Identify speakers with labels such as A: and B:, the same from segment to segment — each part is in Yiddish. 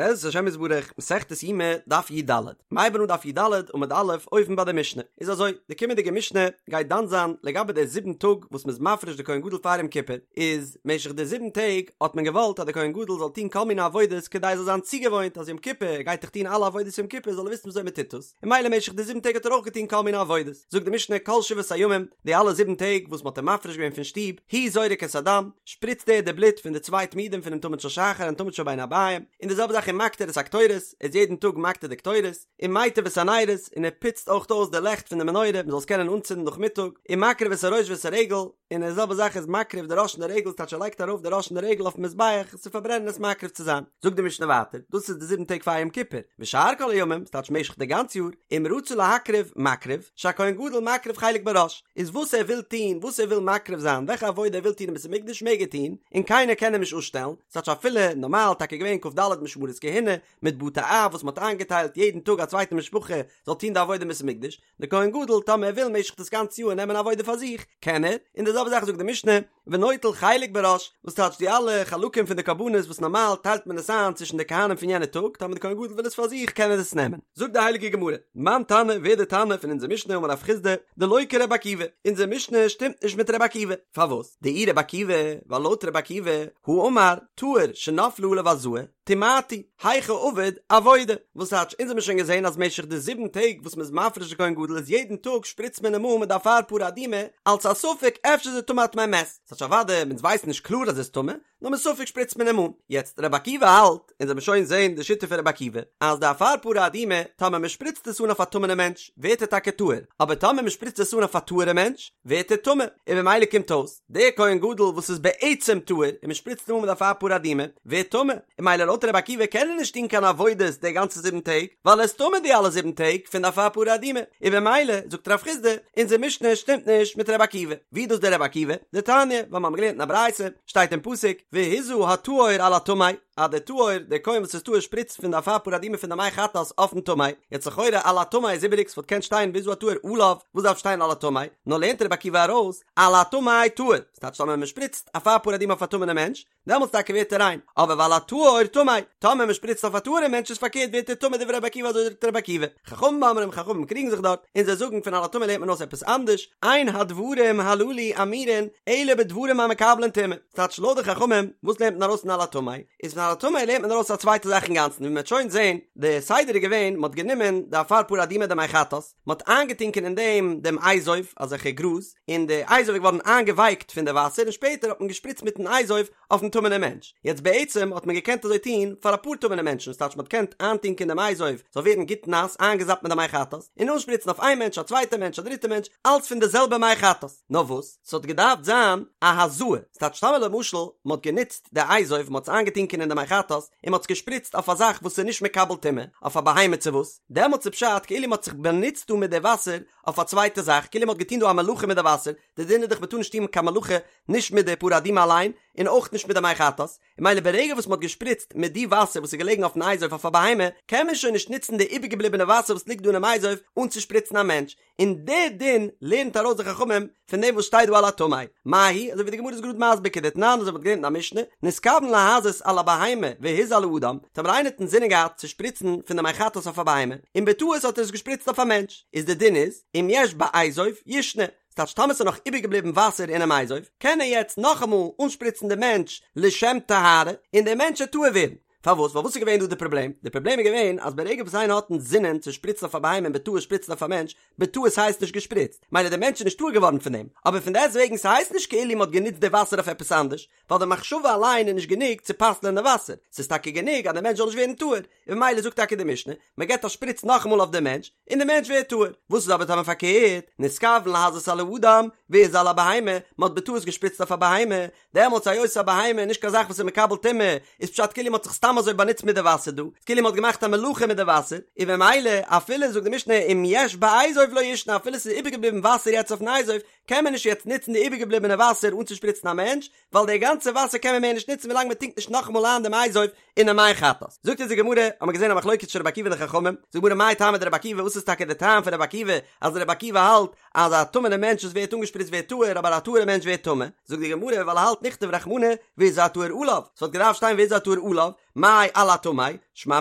A: בעזרת השם יתברך, מסכת יומא, דף י"ד. מ'הייבן אן דף י"ד, עמוד א', אויבן ביי די משנה. איז אזוי, די קומענדיגע משנה גייט דן זיין לגבי די זיבן טאג וואס מ'איז מפריש די כהן גדול פאר יום כיפור. איז משך די זיבן טעג האט מען געוואלט אז די כהן גדול זאל טון כל מיני עבודות כדי ער זאל זיין צוגעוואוינט אז יום כיפור ער גייט דאך טון אלע עבודות יום כיפור זאל ער וויסן וויאזוי מ'טוט עס. און ממילא משך די זיבן טעג האט ער אויך געטון כל מיני עבודות. זאגט די משנה כל שבעת הימים, די אלע זיבן טעג וואס מ'האט אים מפריש געווען פון שטוב, הוא זורק את הדם, שפריצט ער די בלוט פון די צוויי תמידים פונעם תמיד של שחר און תמיד של בין הערביים, און די זעלבע זאך ומקטיר את הקטורת, ער איז יעדן טאג מקטיר די קטורת, ומיטיב את הנרות, און ער פוצט אויך אויס די לעכט פון די מנורה מ'זאל עס קענען אנצינדן נאכמיטאג, ומקריב את הראש ואת הרגל, און די זעלבע זאך איז מקריב די ראש און די רגל, ס'טייטש ער לייגט ארויף די ראש און די רגל אויפן מזבח עס צו פארברענען עס מקריב צו זיין. זאגט די משנה ווייטער, דאס איז די זיבן טעג פאר יום כיפור, ושאר כל הימים, ס'טייטש משך די גאנץ יאר, אם רצה להקריב, מקריב, שהכהן גדול מקריב חלק בראש, איז וואס ער וויל טון, וואס ער וויל מקריב זיין, וועלכע עבודה ער וויל טון אין בית המקדש מעג ער טון, און קיינער קען אים נישט אפשטעלן, ס'טייטש אפילו נארמאל טאקע געווען כ"ד משמרות כהונה, מיט בתי אב וואס מ'האט איינגעטיילט יעדן טאג א צווייטע משפחה זאל טון די עבודה אין בית המקדש, די כהן גדול טאמער ער וויל משך דאס גאנצע יאר נעמען עבודה פאר זיך, קען ער, און די זעלבע זאך זאגט די משנה, ונוטל חלק בראש, וואס טייטש די אלע חלקים פון די קרבנות וואס נארמאל טיילט מען עס איין צווישן די כהנים פון יענע טאג, טאמער די כהן גדול וויל עס פאר זיך קען ער עס נעמען. זאגט די הייליגע גמרא, מאן תנא, ווער די תנא פון אונזער משנה אמר רב חסדא, דלא כרבי עקיבא, אונזער משנה שטימט נישט מיט רבי עקיבא, פארוואס? דאי רבי עקיבא, ווייל לויט רבי עקיבא, הא אמר, טהור שנפלה עליו הזאה, טמאתו, היכי עביד עבודה, וואס טייטש, אונז האמיר שוין געזען אז משך די זיבן טעג וואס מ'איז מפריש די כהן גדול איז יעדן טאג שפריצט מען אים אן מיט די אפר פרה אדומה אלץ א ספק אפשר איז ער טמא א טמא מת, ס'טייטש אוודאי אונז ווייסן נישט קלאר אז ער איז טמא, נאר מספק שפריצט מען אים אן. יעצט רבי עקיבא האלט, אונז וועמיר שוין זען די שיטה פון רבי עקיבא, אז די אפר פרה אדומה טאמער מ'שפריצט עס אן אויף א טמא'נע מענטש ווערט ער טאקע טהור, אבער טאמער מ'שפריצט עס אן אויף א טהור'ע מענטש ווערט ער טמא, און במילא קומט אויס, דער כהן גדול וואס איז בעצם טהור און מען שפריצט אים אן מיט אפר פרה אדומה ווערט טמא, און ממילא לויט רבי עקיבא קען ער נישט טון קיין עבודות די גאנצע זיבן טעג ווייל ער איז טמא די אלע זיבן טעג פון די אפר פרה אדומה, און במילא זאגט רב חסדא אונזער משנה שטימט נישט מיט רבי עקיבא, ווי איז דאס דער רבי עקיבא? דתניא, ווייל מיר האבן געלערנט אין א ברייתא, שטייט אין פסוק, והזה הטהור על הטמא, אז דער טהור, דער כהן וואס איז טהור שפריצט פון די אפר פרה אדומה פון די מי חטאת אויפן טמא, יעצט לכאורה על הטמא איז איבעריג ס'וואלט געקענט שטיין והזה הטהור עליו, וואס דארף שטיין על הטמא? נאר לערנט רבי עקיבא ארויס, על הטמא טהור, ס'טייטש טאמער מ'שפריצט אפר פרה אדומה אויף א טמא'נע מענטש, דעמאלטס טאקע ווערט ער ריין, אבער ועל הטהור טמא, טאמער מ'שפריצט אויף א טהור'ע מענטש איז פארקערט ווערט ער טמא דברי רבי עקיבא אזוי זאגט רבי עקיבא, חכמים אומרים חכמים קריגן זיך דארט, און זיי זאגן פון על הטמא לערנט מען אויס עפעס אנדערש, אין הדברים הללו אמורין אלא בדברים המקבלין טומאה, ס'טייטש לויט די חכמים, וואס לערנט מען ארויס פון על הטמא? איז פון על הטמא לערנט מען ארויס א צווייטע זאך אינגאנצן ווי מ'וועט שוין זען, די סדר איז געווען מ'האט גענומען די אפר פרה אדומה די מי חטאת, מען האט איינגעטונקען אין דעם דעם אזוב, אזעלכע גראז, און די אזוב איז געווארן איינגעווייקט פון די וואסער און שפעטער האט מען געשפריצט מיטן אזוב אויפן טמא'נעם מענטש. יעצט בעצם האט מען געקענט אזוי טון פאר אפאר טמא'נע מענטשן, ס'טייטש מען האט געקענט איינטונקען דעם אזוב זאל ווערן גוט נאס איינגעזאפט מיט די מי חטאת, און אנשפריצן אויף איין מענטש א צווייטע מענטש א דריטע מענטש, אלץ פון די זעלבע מי חטאת. נאר וואס, ס'האט געדארפט זיין א הזאה, ס'טייטש טאמער למשל מען האט גענוצט די אזוב, מען האט עס איינגעטונקען אין די מי חטאת, און מען האט עס געשפריצט אויף א זאך וואס איז נישט מקבל טומאה, אויף א בהמה צו וואס, דעמאלטס איז פשט כאילו מ'האט זיך באנוצט דא מיט די וואסער אויף א צווייטע זאך, כאילו מ'האט געטון דא א מלאכה מיט די וואסער, די דין איז דאך מ'טאר נישט טון קיין מלאכה נישט מיט די פרה אדומה אליין, און אויך נישט מיט די מי חטאת, און ממילא ברגע וואס מ'האט געשפריצט מיט די וואסער וואס איז געלעגן אויפן אזוב אויף א בהמה, קען מען שוין נישט נוצן די איבערגעבליבענע וואסער וואס ליגט דא אינעם אזוב אנצושפריצן א מענטש, און די דין לערנט ארויס די חכמים פון דעם וואס שטייט דא על הטמא, מאי היא, אזוי ווי די גמרא איז גראד מסביר כדתנן אזוי ווי מ'האט געלערנט אין א משנה, נתכוון להזות על הבהמה והזה על האדם, טאמער איינער האט אינזינען געהאט צו שפריצן פון די מי חטאת אויף א בהמה, און בטעות האט ער עס געשפריצט אויף א מענטש, איז די דין איז, אם יש באזוב, ישנה, ס'טייטש טאמער ס'איז נאך איבערגעבליבן וואסער אינעם אזוב, קען ער יעצט נאכאמאל אנשפריצן די מענטש לשם טהרה, און דער מענטש וועט טהור ווערן. פארוואס? ווייל וואס איז געווען דא די פראבלעם? די פראבלעם איז געווען אז ברגע וואס איינער האט אינזינען צו שפריצן אויף א בהמה און בטעות שפריצט אויף א מענטש, בטעות הייסט נישט געשפריצט, מילא דער מענטש איז נישט טהור געווארן פון דעם, אבער פון דעסט וועגן ס'הייסט נישט כאילו מ'האט גענוצט די וואסער אויף עפעס אנדערש, ווייל די מחשבה אליין איז נישט גענוג צו פסל'ען די וואסער, ס'איז טאקע גענוג אז דער מענטש זאל נישט ווערן טהור, און ממילא זאגט טאקע די משנה, מ'געט א שפריץ נאכאמאל אויף דעם מענטש, און דער מענטש ווערט טהור. וואס איז אבער טאמער פארקערט, נתכוון להזות על האדם, והזה על הבהמה, מ'האט בטעות געשפריצט אויף א בהמה, דעמאלטס היות א בהמה איז נישט קיין זאך וואס איז מקבל טומאה, איז פשט כאילו מ'האט זיך סתם אזוי באנוצט מיט די וואסער דא, כאילו מ'האט געמאכט א מלאכה מיט די וואסער, און במילא אפילו זאגט די משנה אם יש באזוב לא ישנה אפילו ס'איז איבערגעבליבן וואסער יעצט אויפן אזוב, קען מען נישט יעצט נוצן די איבערגעבליבענע וואסער אנצושפריצן א מענטש, ווייל די גאנצע וואסער קען מען מער נישט נוצן ווילאנג מ'טונקט נישט נאכאמאל איין דעם אזוב אינעם מי חטאת. זאגט אונז די גמרא, האמיר געזען א מחלוקת צווישן רבי עקיבא און די חכמים, זאגט די גמרא מאי טעמא דרבי עקיבא וואס איז טאקע די טעם פון רבי עקיבא אז רבי עקיבא האלט אז א טמא'נע מענטש וואס ווערט אנגעשפריצט ווערט טהור אבער א טהור'ע מענטש ווערט טמא? זאגט די גמרא ווייל ער האלט נכתוב רחמנא והזה הטהור עליו, ס'וואלט געדארפט שטיין והזה הטהור עליו, מאי על הטמא, שמע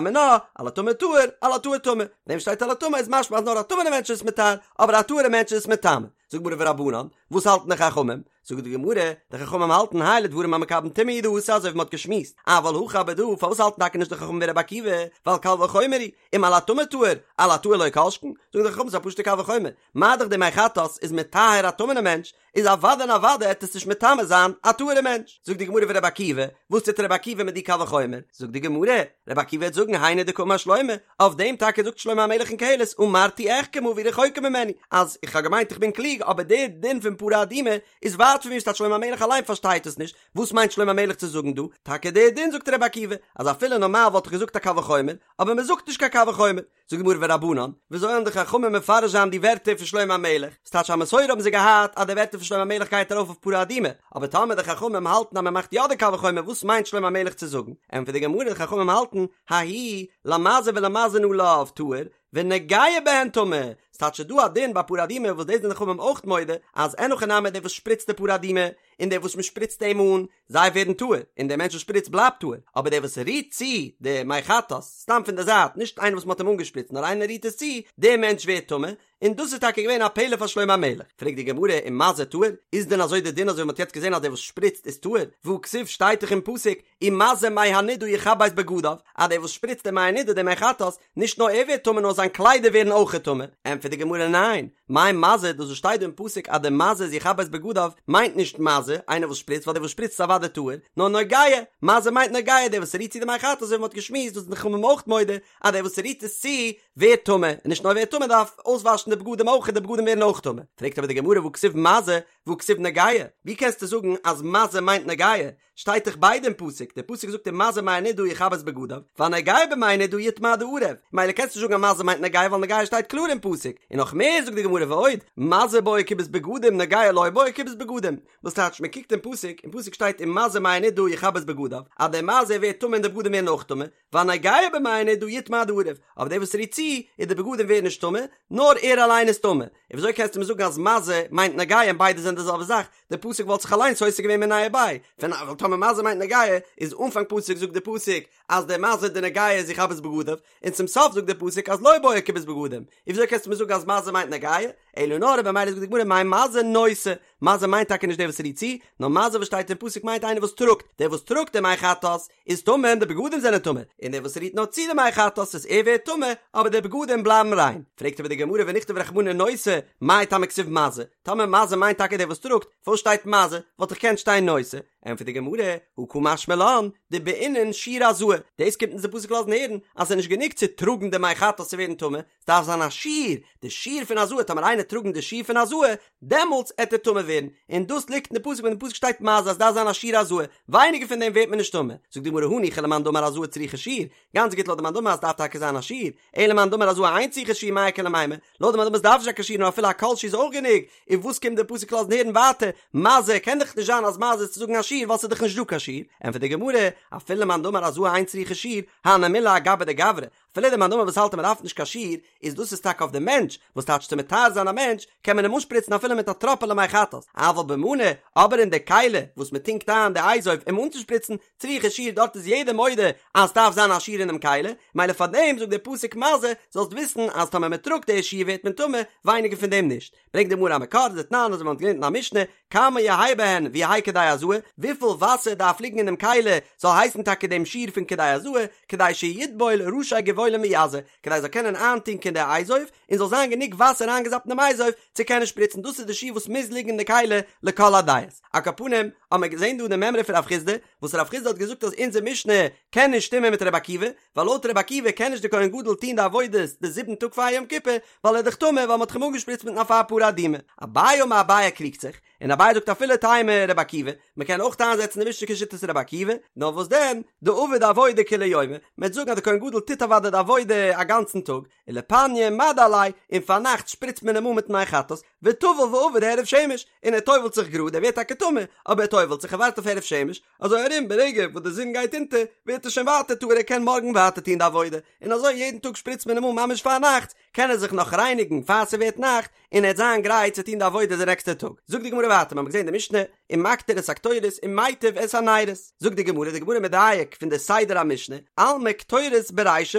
A: מינה, על הטמא טהור, על הטהור טמא, דעם שטייט על הטמא איז משמע אז נאר א טמא'נע מענטש איז מטהר, אבער א טהור'ע מענטש איז מטמא. זאגט די גמרא ורבנן, וואס האלטן די חכמים? זאגט די גמרא, די חכמים האלטן האי לדברים המקבלין טומאה הוא דאתא אזוי ווי מ'האט געשמועסט, אבל הכא אבער דא, פארוואס האלטן טאקע נישט די חכמים ווי רבי עקיבא, ווייל קל וחומר הוא, אם על הטמא טהור, על הטהור לא כל שכן, זאגן די חכמים ס'איז א פשוט'ע קל וחומר, מה דאך די מי חטאת איז מטהר א טמא'נע מענטש, איז אוודאי און אוודאי עט עס נישט מטמא זיין א טהור'ע מענטש. זאגט די גמרא ורבי עקיבא, וואס טוט רבי עקיבא מיט די קל וחומר? זאגט די גמרא, רבי עקיבא וועט זאגן היינו דקאמר שלמה, אויף דעם טאקע זאגט שלמה המלך אין קהלת אמרתי אחכמה והיא רחוקה ממני, אז איך האב געמיינט איך בין קלוג אבער דער דין פון פרה אדומה איז ווייט פון מיר ס'טייטש שלמה המלך אליין פארשטייט עס נישט, וואס מיינט שלמה המלך צו זאגן דא? טאקע דער דין זאגט רבי עקיבא, אז אפילו נארמאל וואלט איך געזאגט א קל וחומר, אבער מען זאגט נישט קיין קל וחומר. זאגט די גמרא ורבנן, וויאזוי וועלן די חכמים מפרש זיין די ווערטער פון שלמה המלך? ס'טייטש א מסורה האבן זיי געהאט אז די ווערטער פון שלמה המלך גייט ארויף אויף פרה אדומה, אבער טאמער די חכמים האלטן אז מען מאכט יא די קל וחומר וואס מיינט שלמה המלך צו זאגן? ענטפערט די גמרא די חכמים האלטן ההוא למזה ולמזין עליו טהור ונוגע בהן טמא, ס'טייטש ס'איז דא א דין ביי פרה אדומה וואס דאס זענען די חכמים אויך מודה אז אין הכי נמי דער וואס שפריצט די פרה אדומה און דער וואס מען שפריצט אים אן זיי ווערן טהור, און דער מענטש וואס שפריצט בלייבט טהור, אבער דער וואס רירט צו די מי חטאת, סתם פון די זייט, נישט איינער וואס מען האט אים אנגעשפריצט, נאר איינער רירט עס צו, דער מענטש ווערט טמא, און דאס איז טאקע געווען א פלא פאר שלמה המלך. פרעגט די גמרא, ומזה טהור? איז דען אזוי די דין אזוי ווי מען האט יעצט געזען אז דער וואס שפריצט איז טהור? והכתיב שטייט דאך אין פסוק, ומזה מי הנידה יכבס בגדיו, אז דער וואס שפריצט די מי הנידה די מי חטאת, נישט נאר ער ווערט טמא נאר זיין קליידער ווערן אויכעט טמא, ענטפערט די גמרא ניין, מאי מזה דאס וואס שטייט דא אין פסוק אז די מזה איז יכבס בגדיו מיינט נישט מזה, איינער וואס שפריצט ווייל דער וואס שפריצט איז אוודאי טהור, נאר נוגע, מזה מיינט נוגע דער וואס רירט צו די מי חטאת אזוי ווי מ'האט געשמועסט דאס זענען די חכמים אויך מודה אז דער וואס רירט עס צו ווערט טמא, און נישט נאר ווערט טמא דארף אויסוואשן די בגדים אויך די בגדים ווערן אויך טמא, פרעגט אבער די גמרא והכתיב מזה והכתיב נוגע, ווי קענסטו זאגן אז מזה מיינט נוגע, שטייט דאך ביידע אין פסוק, דער פסוק זאגט ומזה מי הנידה יכבס בגדיו, והנוגע במי הנידה יטמא עד הערב, ממילא קענסטו נישט זאגן אז מזה מיינט נוגע ווייל נוגע שטייט קלאר אין פסוק, און נאך מער זאגט די גמרא ועוד, מזה בעי כיבוס בגדים נוגע לא בעי כיבוס בגדים, וואס טייטש מען קוקט אין פסוק, אין פסוק שטייט ומזה מי הנידה יכבס בגדיו, אז דער מזה ווערט טמא און די בגדים ווערן אויך טמא, והנוגע במי הנידה יטמא עד הערב, אבער דער וואס רירט צו, איז די בגדים ווערן נישט טמא, נאר ער אליין איז טמא, און וויאזוי קענסטו מיר זאגן אז מזה מיינט נוגע און ביידע זענען די זעלבע זאך, די פסוק וואלט זיך אליינס סותר געווען מיניה וביה, פון ווייל טאמער מזה מיינט נוגע, איז אנפאנג פסוק זאגט די פסוק אז דער מזה די נוגע איז יכבס בגדיו, און צום סוף זאגט די פסוק אז לא בעי כיבוס בגדים, און וויאזוי קענסטו מיר זאגן אז מזה מיינט נוגע, אלא נאר במילא זאגט די גמרא מאי מזה נושא, מזה מיינט טאקע נישט דער וואס רירט צו, נאר מזה וואס שטייט אין פסוק מיינט איינער וואס טראגט, דער וואס טראגט די מי חטאת איז טמא און די בגדים זענען טמא, און דער וואס רירט נאר צו די מי חטאת איז ער ווערט טמא, אבער די בגדים בלייבן ריין. פרעגט אבער די גמרא ונכתוב רחמנא נושא, מאי טעמא כתיב מזה, טאמער מזה מיינט טאקע דער וואס טראגט, פארוואס שטייט מזה, וואלט דאך געקענט שטיין נושא. ענטפערט די גמרא, הא קא משמע לן, דבעינן שיעור הזאה, דאס קומט אונז די פסוק לאזן הערן אז ס'איז נישט גענוג צו טראגן די מי חטאת צו ווערן טמא, ס'דארף זיין א שיעור, די שיעור פון הזאה, טאמער איינער טראגן די שיעור פון הזאה, דעמאלטס עט ער טמא ווערן, און דאס ליגט אין די פסוק ווען די פסוק שטייט מזה אז ס'דארף זיין א שיעור הזאה, ווייניגער פון דעם ווערט מען נישט טמא, זאגט די גמרא הניחא למאן דאמר הזאה צריכה שיעור, גאנץ גוט לויט די מאן דאמר אז ס'דארף טאקע זיין א שיעור, אלא למאן דאמר הזאה אין צריכה שיעור מאי איכא למימר, לויט די מאן דאמר ס'דארף נישט זיין קיין שיעור נאר אפילו א כל שהוא איז אויך גענוג, און וואס קומט די פסוק לאזן הערן ווייטער, מזה קען דאך נישט זיין אז מזה איז צו זאגן א שיעור ווייל ס'איז דאך נישט דא קיין שיעור, ענטפערט די גמרא, אפילו למאן דאמר הזאה אין צריכה שיעור, הני מילי אגביה דגברא, אפילו די מאן דאמר וואס האלט אז מען דארף נישט קיין שיעור, איז דאס איז טאקע אויף די מענטש, וואס טייטש צו מטהר זיין א מענטש, קען מען אים אנשפריצן אפילו מיט א טראפעלע מי חטאת, אבל במנא, אבער אין די כלי וואס מען טונקט איין די אזוב אים אנצושפריצן, צריכה שיעור דארט איז יעדער מודה אז סדארף זיין א שיעור אינעם כלי, מילא פארדעם זאגט דער פסוק מזה, זאלסט וויסן אז טאמער מען טראגט די שיעור ווערט מען טמא, ווייניגער פון דעם נישט. ברענגט די גמרא א מקור, דתנן אזוי ווי מען האט געלערנט אין א משנה, כמה יהא בהן ויהא כדי הזאה, וויפיל וואסער דארף ליגן אינעם כלי זאל הייסן טאקע דעם שיעור פון כדי הזאה, כדי שיטבול ראשי גבעולים ויזה, כדי זאל קענען איינטונקען די אזוב, און זאל זיין גענוג וואסער איינגעזאפט אינעם אזוב צו קענען שפריצן, דאס איז די שיעור וואס מוז ליגן אין די כלי לכל הדעות. על כל פנים, האט מען געזען דא די מימרא פון רב חסדא, וואס רב חסדא האט געזאגט אז אונזער משנה קען נישט שטימען מיט רבי עקיבא, ווייל לויט רבי עקיבא קען נישט די כהן גדול טון די עבודות די זיבן טאג פאר יום כיפור, ווייל ער איז דאך טמא ווייל מען האט אים אנגעשפריצט מיטן אפר פרה אדומה. אביי אמר אביי קריגט זיך, און אביי זאגט אפילו תימא רבי עקיבא, מען קען אויך איינזעצן די משנה כשיטת רבי עקיבא, נאר וואס דען, דעביד עבודה כולי יומא, מען וועט זאגן אז די כהן גדול טוט אוודאי די עבודה א גאנצן טאג, ולפניא מדו עליה, און פארנאכט שפריצט מען אים אן מיטן מי חטאת, וטבל ועבד הערב שמש, און ער טובל'ט זיך גראד, ער ווערט טאקע טמא, אבער ער טובל'ט זיך, ער ווארט אויף הערב שמש, אזוי ארום ברגע וואס די זון גייט אונטער, ווערט ער שוין ווייטער טהור ער קען מארגן ווייטער טון די עבודה, און אזוי יעדן טאג שפריצט מען אים אן ממש פארנאכטס, קען ער זיך נאך רייניגן פאר ס'ווערט נאכט, און ער וועט זיין גרייט צו טון די עבודה די נעקסטע טאג. זאגט די גמרא ווייטער, מ'האט געזען די משנה, ומקטיר את הקטורת ומיטב את הנרות. זאגט די גמרא, די גמרא מדייק פון די סדר המשנה, אלמא קטורת ברישא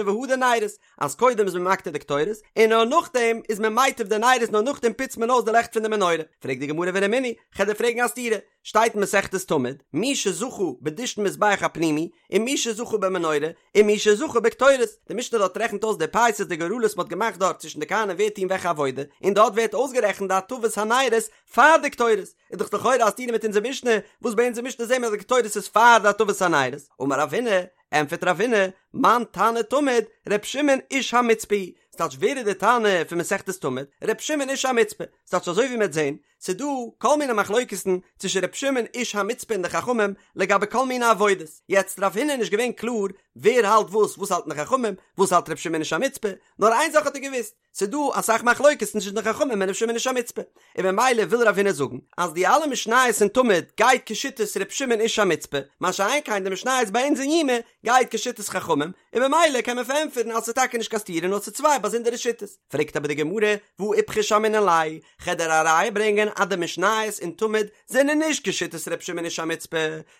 A: והדר נרות, אז קודם איז מען מקטיר די קטורת, און נאר נאכדעם איז מען מיטב די נרות, נאר נאכדעם פוצט מען אויס די לעכט פון די מנורה. פרעגט די גמרא ורמינהי, כ'על דיר פרעגן א סתירה, שטייט אין מסכת תמיד, מי שזכה בדישון מזבח הפנימי, ומי שזכה במנורה, ומי שזכה בקטורת, די משנה דארט רעכנט אויס די פייסות די גורלות מ'האט געמאכט דארט צווישן די כהנים ווער טוהן וועלכע עבודה, און דארט ווערט אויסגערעכנט די הטבת הנרות פאר די קטורת, איז דאך לכאורה א סתירה מיט אונזער משנה, וואס ביי אונזער משנה זעהן מיר אז די קטורת איז פאר די הטבת הנרות, אמר רב הונא, ענטפערט רב הונא, מאן תנא תמיד, ר' שמעון איש המצפה היא, ס'טייטש ווער איז די תנא פון מסכת תמיד, ר' שמעון איש המצפה, ס'טייטש אזוי ווי מ'עט זעהן, ס'דא כל מיני מחלוקת'ן צווישן ר' שמעון איש המצפה און די חכמים לגבי כל מיני עבודות, יעצט רב הונא איז נישט געווען קלאר ווער האלט וואס, וואס האלטן די חכמים, וואס האלט ר' שמעון איש המצפה, נאר איין זאך האט ער געוואוסט, ס'דא אסאך מחלוקת'ן צווישן די חכמים און ר' שמעון איש המצפה, און ממילא וויל רב הונא זאגן אז די אלע משניות אין תמיד גייט כשיטת ר' שמעון איש המצפה, מה שאין כן די משניות ביי אונז אין יומא גייט כשיטת חכמים, און ממילא קען מען פארענטפערן אז ס'איז טאקע נישט קיין סתירה נאר ס'איז צוויי באזונדערע שיטות. פרעגט אבער די גמרא, והא איפכא שמעינן ליה, כ'על דיר א ראיה ברענגען אז די משניות אין תמיד זענען נישט כשיטת ר' שמעון איש המצפה,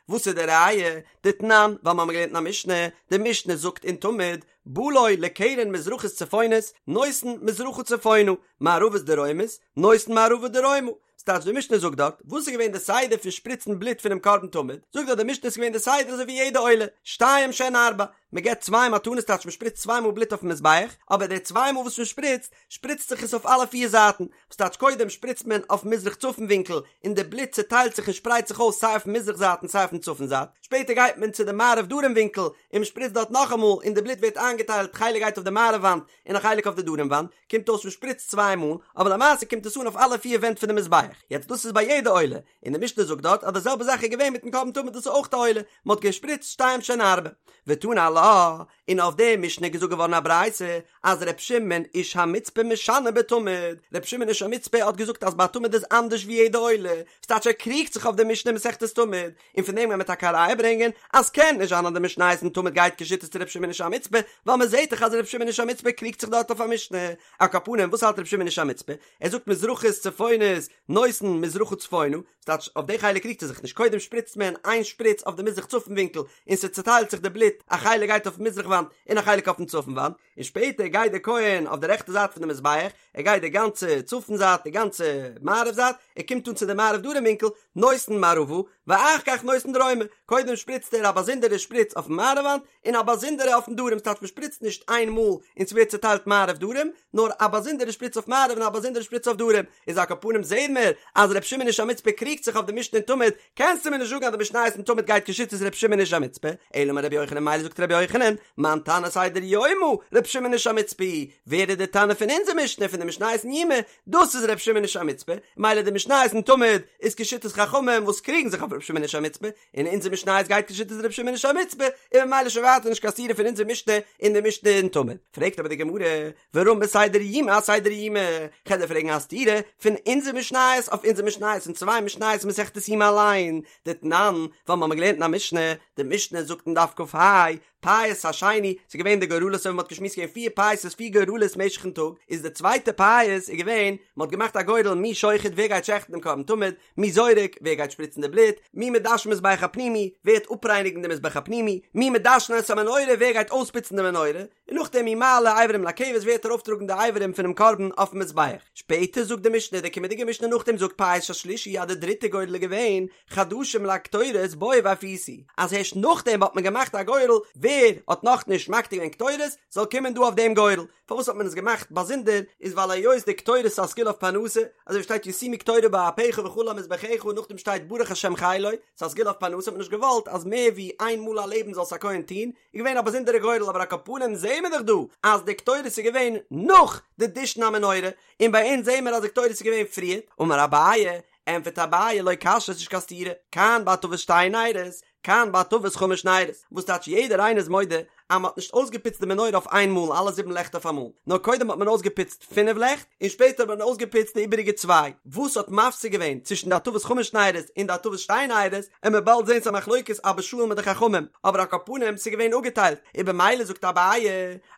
A: וואס איז די ראיה? דתנן, ווייל מ'האמיר געלערנט אין א משנה, די משנה זאגט אין תמיד, בא לו לקרן מזרחית צפונית, נותן מזרחה צפונה, מערבית דרומית, נותן מערבה דרומה. ס'טייטש די משנה זאגט דארט, וואס איז געווען די סדר פון שפריצן בלוט פונעם קרבן תמיד, זאגט דארט די משנה ס'איז געווען די סדר אזוי ווי יעדע עולה, שתיים שהן ארבע, מ'געבט צוויי מתנות טייטש מ'שפריצט צוויי מאל בלוט אויפן מזבח, אבער די צוויי מאל וואס מ'שפריצט, שפריצט זיך עס אויף אלע פיר זייטן, וואס טייטש קודם שפריצט מען אויף מזרח צפון ווינקל און די בלוט צעטיילט זיך און שפרייט זיך אויס סיי אויפן מזרח זייט און סיי אויפן צפון זייט, שפעטער גייט מען צו די מערב דרום ווינקל און מ'שפריצט דארט נאכאמאל און די בלוט ווערט איינגעטיילט חלק גייט אויף די מערב וואנט און א חלק אויף די דרום וואנט, קומט אויס מ'שפריצט צוויי מאל, אבער למעשה קומט עס אן אויף אלע פיר ווענט פון די מזבח. יעצט דאס איז ביי יעדע עולה, און די משנה זאגט דארט אז די זעלבע זאך איז געווען מיטן קרבן תמיד דאס איז אויך א עולה, מ'האט געשפריצט שתיים שהן ארבע. ותנא עלה, און אויף די משנה איז געזאגט געווארן א ברייתא אז ר' שמעון איש המצפה משנה בתמיד, ר' שמעון איש המצפה האט געזאגט אז ביי תמיד איז אנדערש ווי יעדע עולה, ס'טייטש ער קריגט זיך אויף די משנה אין מסכת תמיד, און פון דעם גייען מיר טאקע א ראיה ברענגען אז קען נישט זיין אז די משניות אין תמיד גייט כשיטת ר' שמעון איש המצפה, ווייל מען זעט דאך אז ר' שמעון איש המצפה קריגט זיך דארט אויף א משנה. על כל פנים וואס האלט ר' שמעון איש המצפה? ער זאגט מזרחית צפונית נותן מזרחה צפונה, ס'טייטש אויף די חלק קריגט ער זיך נישט, קודם שפריצט מען איין שפריץ אויף די מזרח צפון ווינקל און ס'צעטיילט זיך די בלוט, א חלק גייט אויפן מזרח וואנט און א חלק אויפן צפון וואנט, און שפעטער גייט דער כהן אויף די רעכטע זייט פון די מזבח, ער גייט די גאנצע צפון זייט, די גאנצע מערב זייט, ער קומט אן צו די מערב דרום ווינקל, נותן מערבה, ואחר כך נותן דרומה, קודם שפריצט ער א באזונדערע שפריץ אויפן מערב וואנט, און א באזונדערע אויפן דרום, ס'טייטש מ'שפריצט נישט איין מאל און ס'ווערט צוטיילט מערב דרום, נאר א באזונדערע שפריץ אויף מערב און א באזונדערע שפריץ אויף דרום, איז על כל פנים זעהן מיר אז ר' שמעון איש המצפה קריגט זיך אויף די משנה אין תמיד, קענסטו מיר נישט זאגן אז די משניות אין תמיד גייט כשיטת ר' שמעון איש המצפה, אלא אמר רבי יוחנן מילא זאגט רבי יוחנן, מאן תנא סדר יומא, ר' שמעון איש המצפה היא, ווער איז די תנא פון אונזער משנה פון די משניות אין יומא, דאס איז ר' שמעון איש המצפה, מילא די משניות אין תמיד איז כשיטת חכמים וואס קריגן זיך אויף ר' שמעון איש המצפה, און אונזער משניות גייט כשיטת ר' שמעון איש המצפה, און ממילא שוין ווייטער נישט קיין סתירה פון אונזער משנה און די משנה אין תמיד. פרעגט אבער די גמרא, ורמי סדר יומא אסדר יומא, כ'על דיר פרעגן א סתירה פון אונזער משניות אויף אונזער משניות און צוויי משניות אין מסכת יומא אליין, דתנן, ווייל מ'האמיר געלערנט אין א משנה, די משנה זאגט אין דף כ"ה, פייס השני, ס'איז געווען די גורלות אזוי ווי מ'האט געשמועסט געווען פיר פייסות פיר גורלות משך'ן טאג, איז די צווייטע פייס איז געווען, מ'האט געמאכט א גורל מי שוחט ווער גייט שעכטן דעם קרבן תמיד, מי זורק, ווער גייט שפריצן די בלוט, מי מדשן מזבח הפנימי, ווער וועט אפרייניגן די מזבח הפנימי, מי מדשן את המנורה, ווער גייט אויספוצן די מנורה, און נאכדעם מי מעלה אברים לכבש, ווער וועט ארויפטראגן די אברים פונעם קרבן אויפן מזבח. שפעטער זאגט די משנה, די קומענדיגע משנה נאכדעם זאגט פייס השלישי אז די דריטע גורל איז געווען, חדשים להקטורת בואו והפיסו, אז הערשט נאכדעם האט מען געמאכט א גורל, ווער האט נאכנישט מקטיר געווען קטורת, זאל קומען דא אויף דעם גורל. פארוואס האט מען עס געמאכט באזונדער, איז ווייל היות די קטורת איז א סגולה אויף פרנסה, אזוי ווי שטייט ישימו קטורה באפך וכלה על מזבחך און נאכדעם שטייט ברך השם חילו, ס'איז א סגולה אויף פרנסה האט מען נישט געוואלט אז מער ווי איין מאל א לעבן זאל עס א כהן טון, איז געווען א באזונדערע גורל אבער על כל פנים זעהן מיר דאך דא אז די קטורת איז געווען נאך די דישון המנורה, און ביי אונז זעהן מיר אז די קטורת איז געווען פריער, אמר אביי, ענטפערט אביי לא קשיא ס'איז נישט קיין סתירה, כאן בהטבת שתי נרות, כאן בהטבת חמש נרות, וואס טייטש יעדער איינער איז מודה אז מ'האט נישט אויסגעפוצט די מנורה אויף איין מאל אלע זיבן לעכט אויף אמאל, נאר קודם האט מען אויסגעפוצט פינף לעכט, און שפעטער האט מען אויסגעפוצט די איבעריגע צוויי, וואס האט מפסיק געווען צווישן די הטבת חמש נרות און די הטבת שתי נרות, עמיר באלד זען ס'א מחלוקת אבא שאול מיט די חכמים, אבער על כל פנים ס'איז געווען אפגעטיילט, און במילא זאגט אביי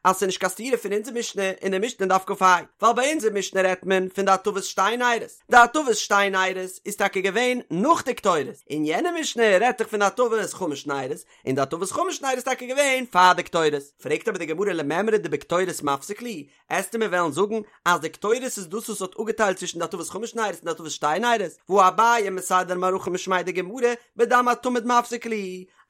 A: אז ס'איז נישט קיין סתירה פון אונזער משנה און די משנה אין דף כ"ה, ווייל ביי אונזער משנה רעדט מען פון די הטבת שתי נרות, די הטבת שתי נרות איז טאקע געווען נאך די קטורת, און יענע משנה רעדט דאך פון די הטבת חמש נרות, און די הטבת חמש נרות איז טאקע געווען פאר די קטורת. פרעגט אבער די גמרא למימרא דבקטורת מפסיק להו, עסטו מיר וועלן זאגן אז די קטורת איז דאס וואס האט אפגעטיילט צווישן די הטבת חמש נרות און די הטבת שתי נרות, והא אביי מסדר מערכה משמיה דגמרא בדם התמיד מפסיק להו,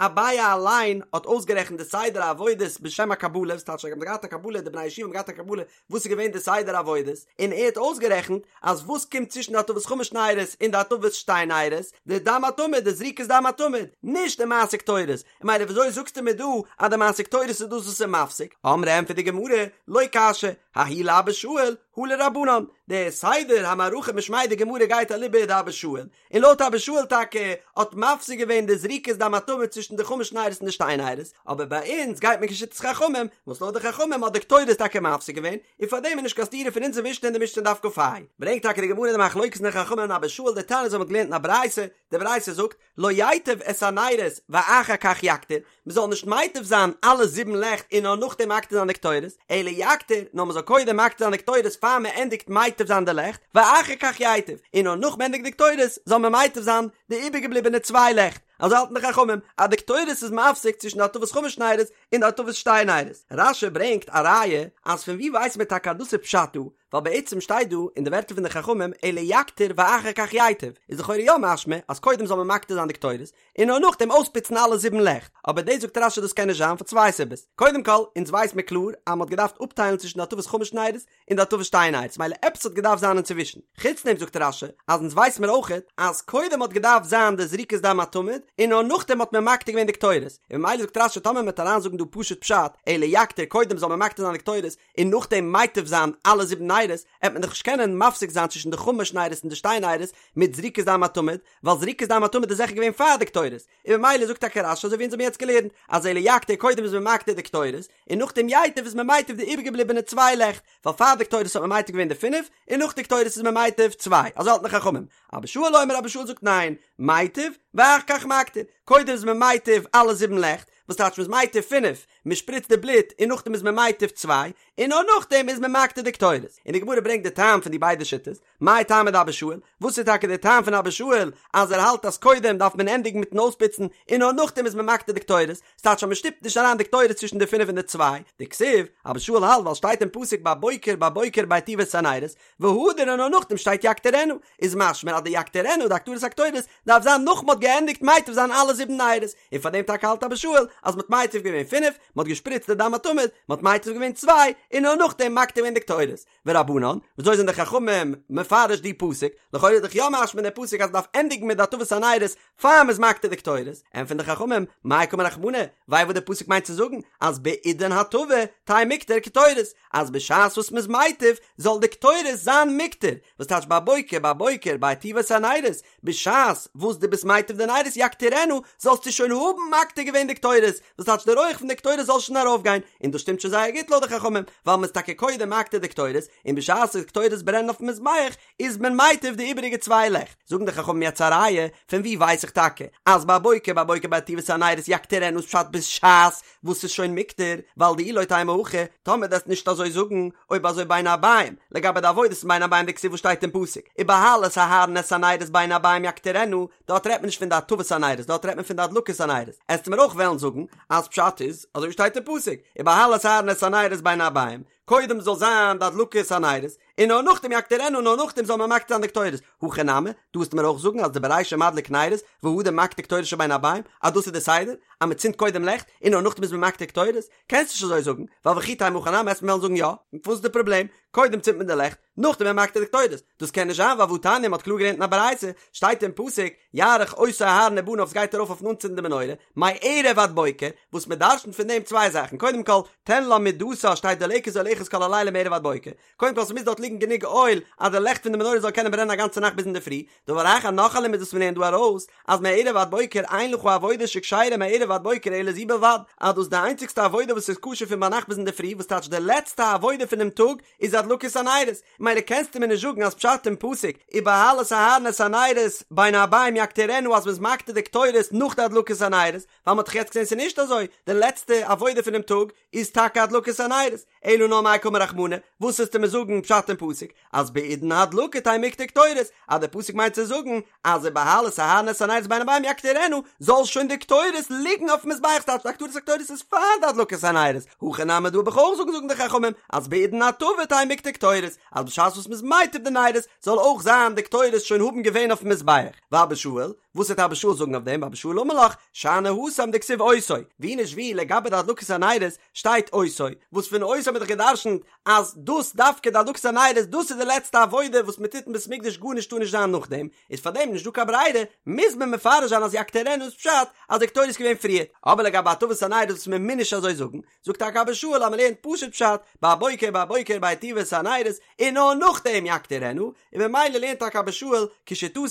A: אביי אליין האט אויסגערעכנט די סדר העבודות בשם הקבלה, וואס טייטש זיי האבן געהאט א קבלה, די בני הישיבה האבן געהאט א קבלה וואס איז געווען די סדר העבודות, און ער האט אויסגערעכנט אז וואס קומט צווישן די הטבת חמש נרות און די הטבת שתי נרות, די דם התמיד, די זריקת דם התמיד, נישט די מעשה קטורת, און ממילא וויאזוי זאגסטו מיר דא אז די מעשה קטורת איז דאס וואס איז מפסיק? אמרי ענטפערט די גמרא, לא קשיא, ההיא לאבא שאול, הא לרבנן, די סדר המערכה משמיה דגמרא גייט אליבא דאבא שאול, און לויט אבא שאול טאקע האט מפסיק געווען די זריקת דם התמיד צווישן די חמש נרות און די שתי נרות, אבער ביי אונז גייט מען כשיטת חכמים, וואס לויט די חכמים האט די קטורת טאקע מפסיק געווען, און פארדעם איז נישט קיין סתירה פון אונזער משנה און די משנה אין דף כ"ה. ברענגט טאקע די גמרא די מחלוקת פון די חכמים און אבא שאול דתניא אזוי מ'האט געלערנט אין א ברייתא, די ברייתא זאגט, לא ייטיב את הנרות ואחר כך יקטיר, מען זאל נישט מייטיב זיין אלע זיבן לעכט און נאר נאכדעם מקטיר זיין די קטורת, אלא יקטיר, נאר מען זאל קודם מקטיר זיין די קטורת פאר מען ענדיגט מייטיב זיין די לעכט, ואחר כך ייטיב, און נאר נאך מען ענדיגט די קטורת זאל מען מייטיב זיין די איבערגעבליבענע צוויי לעכט, אזוי האלטן די חכמים אז די קטורת איז מפסיק צווישן די הטבת חמש נרות און די הטבת שתי נרות. רש"י ברענגט א ראיה אז פון ווי ווייסט מען טאקע אז דאס איז פשט דא, ווייל בעצם שטייט דא אין די ווערטער פון די חכמים אלא יקטיר ואחר כך ייטיב, איז לכאורה יא משמע אז קודם זאל מען מקטיר זיין די קטורת, און נאר נאכדעם אויספוצן אלע זיבן לעכט, אבער דאס זאגט רש"י דאס קען נישט זיין פאר צוויי סיבות, קודם כל, אונז ווייס מיר קלאר אז מען האט געדארפט אפטיילן צווישן די הטבת חמש נרות און די הטבת שתי נרות, מילא עפעס האט געדארפט זיין אינצווישן, חוץ דעם זאגט רש"י אז אונז ווייס מיר אויכעט אז קודם האט געדארפט זיין די זריקת דם התמיד און נאר נאכדעם האט מען מקטיר געווען די קטורת, און ממילא זאגט רש"י טאמער מען וועט אריינזאגן דא פשוט פשט אלא יקטיר קודם זאל מען מקטיר זיין די קטורת און נאכדעם מייטיב זיין אלע זיבן נרות, עט מען דאך נישט קענען מפסיק זיין צווישן די חמש נרות און די שתי נרות מיט זריקת דם התמיד, ווייל זריקת דם התמיד איז זיכער געווען פאר די קטורת, און ממילא זאגט טאקע רש"י אזוי ווי אונז האבן יעצט געלערנט, אז אלא יקטיר קודם איז מען מקטיר די קטורת, און נאכדעם ייטיב איז מען מייטיב די איבערגעבליבענע צוויי לעכט, ווייל פאר די קטורת האט מען מייטיב געווען די פינף, און נאך די קטורת איז מען מייטיב צוויי, אזוי האלטן די חכמים. אבא שאול אומר אבא שאול זאגט ניין, מייטיב, ואחר כך מקטיר, קודם איז מען מייטיב אלע זיבן לעכט, וואס טייטש מ'איז מייטיב פינף, מ'שפריצט די בלוט און נאכדעם איז מען מייטיב צוויי, און נאר נאכדעם איז מען מקטיר די קטורת. און די גמרא ברענגט די טעם פון די ביידע שיטות, מאי טעמא דאבא שאול, וואס איז טאקע די טעם פון אבא שאול אז ער האלט אז קודם דארף מען ענדיגן מיטן אויספוצן און נאר נאכדעם איז מען מקטיר די קטורת, ס'טייטש אז מ'שטופט נישט אריין די קטורת צווישן די פינף און די צוויי, דכתיב, אבא שאול האלט ווייל שטייט אין פסוק בבוקר בבוקר בהיטיבו את הנרות, והדר און נאר נאכדעם שטייט יקטירנה, איז משמע אז די יקטירנה די הקטרת הקטורת דארף זיין נאך מ'האט געענדיגט מייטיב זיין אלע זיבן נרות, און פאר דעם טאקע האלט אבא שאול אז מ'האט מייטיב געווען פינף, מ'האט געשפריצט די דם התמיד, מ'האט מייטיב געווען צוויי, און נאר נאכדעם מקטיר געווען די קטורת. ורבנן, וויאזוי זענען די חכמים מפרש די פסוק? לכאורה איז דאך יא משמע אין די פסוק אז מ'דארף ענדיגן מיט די הטבת הנרות פאר מ'איז מקטיר די קטורת, ענטפערן די חכמים, מאי קאמר רחמנא, וויי וואס די פסוק מיינט צו זאגן אז בעידן הטבה תהא מיקטר קטורת, אז בשעת וואס מ'איז מייטיב זאל די קטורת זיין מיקטר, וואס טייטש בבוקר בבוקר בהיטיבו את הנרות, בשעת וואס דו ביסט מייטיב די נרות יקטירנה, זאלסטו שוין האבן מקטיר געווען די קטורת, וואס טייטש די רויעך פון די קטורת זאל שוין ארויפגיין, און דאס שטימט שוין זייער גוט לויט די חכמים, ווייל מ'איז טאקע קודם מקטיר די קטורת, און בשעת די קטורת ברענט אויפן מזבח, איז מען מייטיב די איבעריגע צוויי לעכט. זאגן די חכמים יעצט א ראיה, פון וואו ווייס איך טאקע אז בבוקר בבוקר בהיטיבו את הנרות יקטירנה איז פשט בשעת וואס ס'איז שוין מיקטר, ווייל דאי לא תימא הכי, טאמער דו וועסט נישט אזוי זאגן, אויב אזוי בין הערבים, לגבי די עבודת בין הערבים דכתיב וואס שטייט אין פסוק, ובהעלת אהרן את הנרות בין הערבים יקטירנה, דארט רעדט מען נישט פון די הטבת הנרות, דארט רעדט מען פון די הדלקת הנרות, עסטו מיר אויך וועלן זאגן אז פשט איז אזוי ווי שטייט אין פסוק, ובהעלת אהרן את הנרות בין הערבים, קודם זאל זיין די הדלקת הנרות, און נאר נאכדעם יקטירנה און נאר נאכדעם זאל מען מקטיר זיין די קטורת, הכי נמי, דא וועסטו מיר אויך זאגן אז דברישא מדליק נרות, והדר מקטיר קטורת של בין הערבים, אז דאס איז די סדר, אז מען צינדט קודם לעכט, און נאר נאכדעם איז מען מקטיר קטורת, קענסט נישט אזוי זאגן, ווייל וכי תימא הכי נמי עסט מיר וועלן זאגן יא, וואס איז די פראבלעם, קודם צינדט מען די לעכט, נאכדעם איז מען מקטיר די קטורת, דאס קען נישט זיין ווייל והתניא מ'האט קלאר געלערנט אין א ברייתא, שטייט אין פסוק, יערוך אותו אהרן ובניו ס'גייט ארויף אויפן אנצינדן די מנורה, מערב עד בוקר, וואס מען דרשנ'ט פון דעם צוויי זאכן, קודם כל, תן לה מדתה שתהא דולקת עליך. אחת כל הלילה מערב עד בוקר, קודם כל ס'מוז דארט ליגן גענוג אויל אז די לעכט פון די מנורה זאל קענען ברענען א גאנצע נאכט ביז אינדערפרי, דבר אחר נאך א לימוד וואס מ'לערנט דא ארויס, אז מערב עד בוקר אין לך עבודה שכשרה מערב עד בוקר אלא זו בלבד, אז דאס איז די איינציגסטע עבודה וואס איז כשר פון ביינאכט ביז אינדערפרי וואס טייטש די לעצטע עבודה פונעם טאג איז הדלקת הנרות, ממילא קענסטו מיר נישט זאגן אז פשט אין פסוק ובהעלות אהרן את הנרות בין הערבים יקטירנה אז מ'איז מקטיר די קטורת נאך די הדלקת הנרות, ווייל מ'האט דאך יעצט געזען ס'איז נישט אזוי, די לעצטע עבודה פונעם טאג איז טאקע הדלקת הנרות, אלא נאר מאי קאמר רחמנא, וואס וועסטו מיר זאגן פשט אין פסוק אז בעידן הדלקה תהא מיקטר קטורת, אז דער פסוק מיינט צו זאגן אז ובהעלות אהרן את הנרות בין הערבים יקטירנה, זאל שוין די קטורת ליגן אויפן מזבח, ס'טייטש די הקטרת הקטורת איז פאר די הדלקת הנרות, הכא נמי דא וועל איך אויך זאגן זאגן די חכמים אז בעידן הטבה תהא מיקטר קטורת, אז בשעת וואס מ'איז מטיב די נרות זאל אויך זיין די קטורת שוין האבן געווען אויפן מזבח, ואבא שאול, וואס וועט אבא שאול זאגן אויף דעם? ואבא שאול אמר לך, שאני התם דכתיב אותו, ווי נישט ווי לגבי די הדלקת הנרות שטייט אותו, וואס פון אותו האט מען דאך גע'דרש'נט אז דאס דווקא די הדלקת הנרות דאס איז די לעצטע עבודה וואס מען טוט אין בית מקדש גארנישט טאר נישט זיין נאכדעם, איז פאר דעם נישט דא קיין ברירה מוז מען מפרש זיין אז יקטירנה איז פשט אז די קטורת איז געווען פריער, אבער לגבי הטבת הנרות וואס מען מוז נישט אזוי זאגן, זאגט טאקע אבא שאול אז מען לערנט פשוט פשט, בבוקר בבוקר בהיטיבו את הנרות, און נאר נאכדעם יקטירנה, און ממילא לערנט טאקע אבא שאול כשיטתו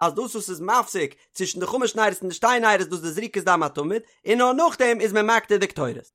A: אז דאס וואס איז מפסיק צווישן די חמש נרות און די שתי נרות דאס איז די זריקת דם התמיד, און נאר נאכדעם איז מען מקטיר די קטורת.